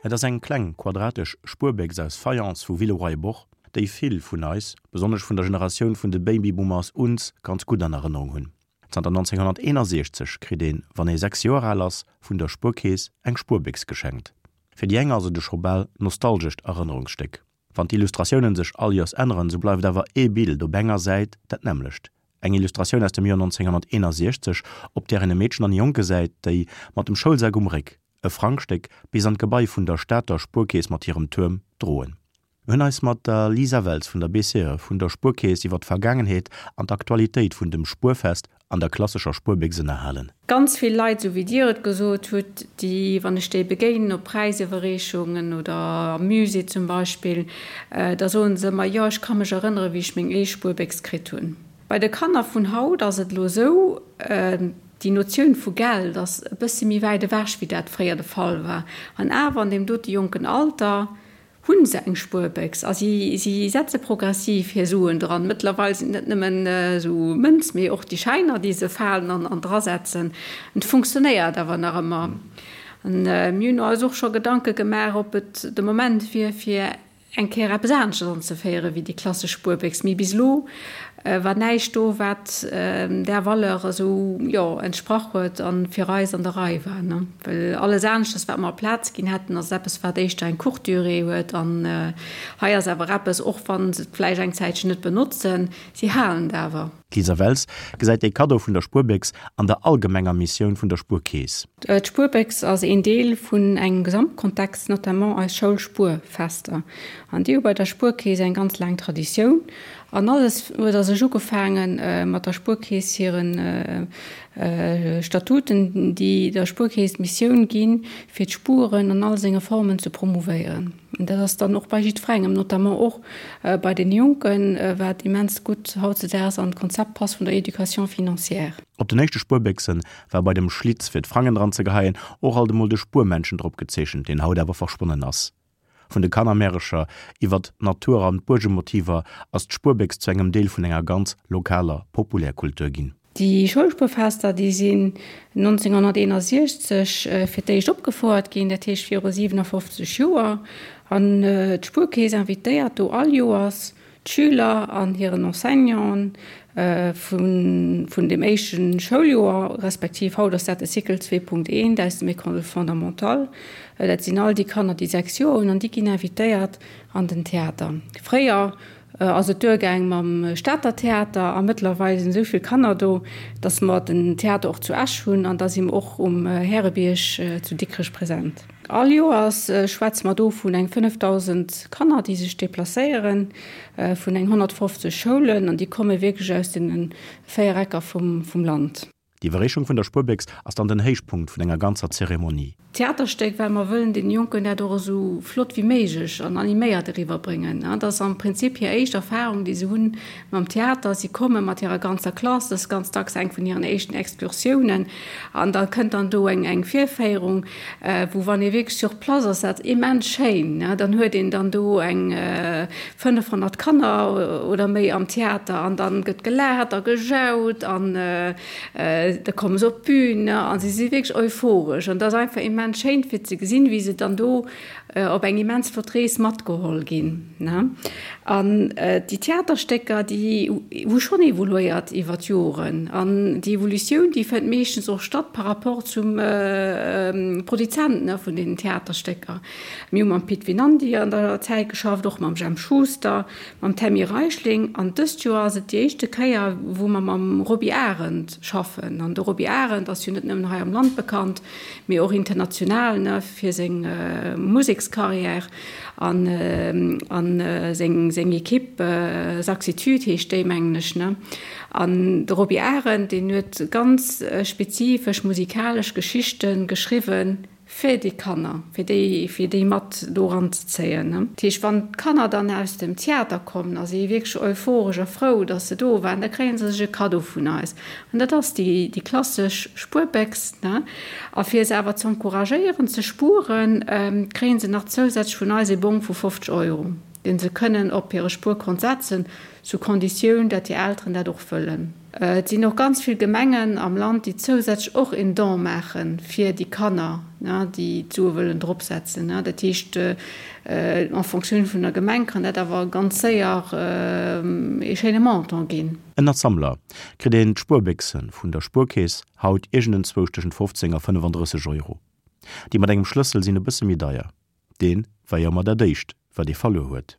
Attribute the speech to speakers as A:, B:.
A: Et ass eng kleng, quadratesch Spuerbéchs aus Fayence vu Villeroy-et-Boch, déi vill vun eis, besonnesch vun der Generatioun vun de Babyboomers, uns ganz gutt an Erënnerung hunn. Zanter 1961 kritt een, wann ee 6 Joer al ass, vun der Spuerkeess eng Spuerbéchs geschenkt. Fir déi eng ass et e scho bal nostalgescht Erënnerungsstéck. Wann d'Illustratiounen sech all Joers änneren, sou bleift awer ee Bild op enger Säit dat nämmlecht, eng Illustratioun aus dem Joer 1961, op där een e Meedchen an e Jong gesäit, déi, mat dem Schoulsak um Réck, e Frangstéck bis an d'Gebai vun der Stater Spuerkeess mat hirem Tuerm droen. Mir hunn eis mat der Lisa Welz vun der BCE vun der Spuerkeess iwwer d'Vergaangenheet an d'Aktualitéit vun dem Spuerfest an der klassescher Spuerbéchs ënnerhalen.
B: Ganz vill Leit, esou wéi Dir et gesot hutt, déi, wann ech déi begéinen op Präisiwwerreechungen oder am Musée zum Beispill, da soen se ëmmer, jo, ech ka mech erënneren, wéi ech meng éischt Spuerbéchs kritt hunn. Bei de Kanner vun haut ass et elo esou, déi Notioun vu Geld ass e bëssi méi wäit ewech, wéi dat fréier de Fall war. An awer an deem dote jonken Alter Hunn se eng Spuerbéchs a si si setze progressiv hir Suen dran. Mëttlerweil sinn et net nëmmen esou Mënz, mee och déi Schäiner, déi se falen an an drasetzen. Et funktionéiert awer nach ëmmer. An mir hunn eis och scho Gedanke gemaach, ob et de Moment wier, fir eng Kéier eppes aneschters anzeféiere wéi déi klassesch Spuerbéchs. Mee bis elo war näischt do, wat där Valeur esou, jo, entsprach huet a fir eis an der Rei war, ne? Well alles aneschters, wat mer Plaz ginn hätten, ass eppes, wat éischter eng courte durée huet. An hei ass awer eppes, och wa se et vläicht eng Zäitchen net benotzen, si halen et awer.
A: D'Lisa Wels gesäit dee Kaddo vun der Spuerbéchs an der allgemenger Missioun vun der Spuerkeess.
B: D'Spuerbéchs ass een Deel vun engem Gesamtkontext, notamment eis Schoulspuerfester. An déi hu bei der Spuerkeess eng ganz laang Traditioun. An alles huet a sech ugefaange mat der Spuerkeess hire Statuten, déi der Spuerkeess d'Missioun ginn, fir d'Spueren an all senge Formen ze promouvéieren. An dat ass dann och bei jiddwerengem, notamment och bei den Jonken, wat immens gutt hautzedaags an d'Konzept passt vun der Éducation financière.
A: Op den éischte Spuerbéchse war bei dem Schlitz fir d'Frangen dran ze geheien och alt emol de Spuermännchen drop gezeechent, deen haut awer verschwonnen ass. Vun de Kannermärecher iwwert d'Natur an d'Buergemotiver ass d'Spuerbéchs zu engem Deel vun enger ganz lokaler Populärkultur ginn.
B: Déi Schoulspuerfester, déi sinn 1961 fir d'éischt opgefouert ginn, dat heescht viru 57 Joer. An d'Spuerkeess invitéiert do all Joers D'Schüler an hiren Enseignanten vun dem éischte Schouljoer, respektiv haut ass dat de Cycle 2.1 aus dem École fondamentale, dat sinn all déi Kanner, déi 6 Joer hunn, an déi ginn invitéiert an den Theater. Fréier ass et duergaang mam Stater Theater a mëttlerweil sinn esou vill Kanner do, datt mer den Theater och zu Esch hunn an da si mer och um Härebierg zu Dikrech present. All Joers schwätze mer do vun eng 5.000 Kanner, déi sech deplacéieren, vun eng 150 Schoulen, an déi komme wierklech aus deene 4 Ecker vum Land.
A: D'Iwwerreechung vun der Spuerbéchs ass dann den Héichpunkt vun enger ganzer Zeremonie.
B: Theaterstéck, well mer wëllen deene Jonken dat och esou flott wéi méiglech an animéiert eriwwerbréngen. Dat ass am Prinzip hir éischt Erfahrung, déi se hunn mam Theater. Si komme mat hirer ganzer Klass, dat ass ganz dacks eng vun hiren éischten Excursiounen, an da kënnt dann do eng Virféierung. Wou wann ee wierklech sur place ass, dat immens schéin, ne, dann huet een dann do eng 500 Kanner oder méi am Theater an dann gëtt gelaacht a gejaut an da komme se op d'Bün, ne, a si si wierklech euphoresch an dat ass einfach immens schéin fir ze gesinn, wéi se dann do op eng immens flott Rees matgeholl ginn. An déi Theaterstécker, déi hu schonn evoluéiert iwwer d'Joren. An déi Evolutioun, déi fënnt meeschtens och statt par rapport zum Produzent vun deenen Theaterstécker. Mir hu mam Pit Vinandy an der Zäit geschafft, och mam Jemp Schuster, mam Tammy Reichling. An dëst Joer ass et déi éischte Kéier, wou mer mam Roby Arendt schaffen. An de Roby Arendt ass jo net nëmmen hei am Land bekannt, mee och international ne fir seng Musekscarrière an an seng seng Equipe Saxitude heescht déi mengen ech ne. An de Roby Arendt deen huet ganz spezifesch musikalesch Geschichte geschriwwen fir déi Kanner, fir déi fir déi mat do eranzezéien ne. Dat heescht wann d'Kanner dann aus dem Theater kommen a si wierklech euphoresch a frou datt se do waren, da kréie se sech e Kaddo vun eis. An dat ass déi, déi klassesch Spuerbéchs, ne? A fir se awer z'encouragéieren ze spueren, kréie se nach zousätzlech vun eis ee Bong vu 50 Euro. dee se kënnen op hire Spuerkont setzen, sous Konditioun, dat hir Elteren dat och wëllen. Et sinn och ganz vill Gemengen am Land, déi zousätzlech och een Don maache fir déi Kanner, déi d'Sue wëllen dropsetzen. Dat heescht, en Fonctioun vun der Gemeng kann dat awer ganz séier ee schéine Montant ginn.
A: Ënnert Sammler kritt een d'Spuerbéchse vun der Spuerkeess haut iergendenzwousch tëschent 15 a 35 Euro. Déi mat engem Schlëssel sinn e bësse méi deier. Dee war jo ëmmer dat éischt, wat ee verluer huet.